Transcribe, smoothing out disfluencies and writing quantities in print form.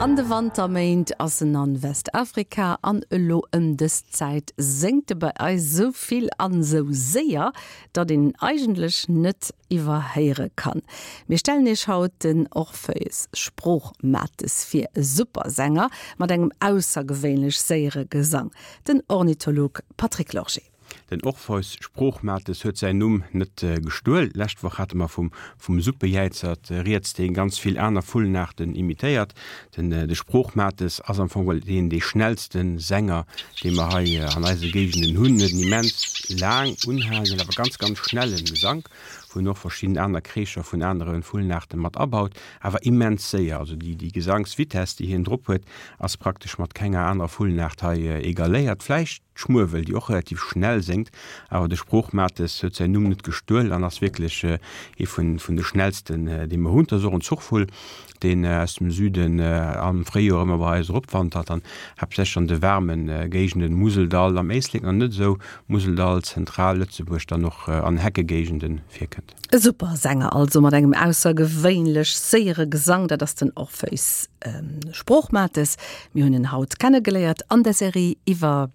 An de Wanterméint ass en an Westafrika an elo ëm dës Zäit séngt e bei eis sou vill an sou séier, datt een en eigentlech net iwwerhéiere kann. Mir stellen iech haut den Orpheus Sproochmates vir, e super Sänger mat engem aussergewéinlech séiere Gesang, den Ornitholog Patrick Lorgé. Den Orpheus Sproochmates huet säin Numm net gestuel. Lescht Woch hate mer vum vum Suppejäizert rieds, dee ganz vill aner Vullenaarten imitéiert. Den de Sproochmates ass am Fong deen dee schnellste Sänger, dee mer hei an eise Géigenden hunn. Huet en immens laang unhalenden, awer ganz, ganz schnelle Gesank, wou en och verschidden aner Kreescher vun anere Vullenaarte mat abaut, awer immens séier. Also déi déi Gesangsvitess, déi hien drop huet, ass praktesch mat kenger anerer Vullenaart hei egaléiert. Vläicht D'Schmuewel, déi och relativ schnell séngt, awer de Sproochmates huet säin Numm net gestuel an ass wierklech ee vun de schnellsten, dee mer hunn. Et ass och en Zuchvull, deen aus dem Süden am Fréijoer ëmmer bei eis eropwandert an haaptsächlech an de waarme Géigenden, Museldall, am Éislek nach net esou, Museldall, Zentral-Lëtzebuerg, dann och an Heckegéigende virkënnt. E super Sänger also mat engem aussergewéinlech séiere Gesang, dat ass den Orpheus Sproochmates. Mir hunn en haut kennegeléiert an der Serie iwwer.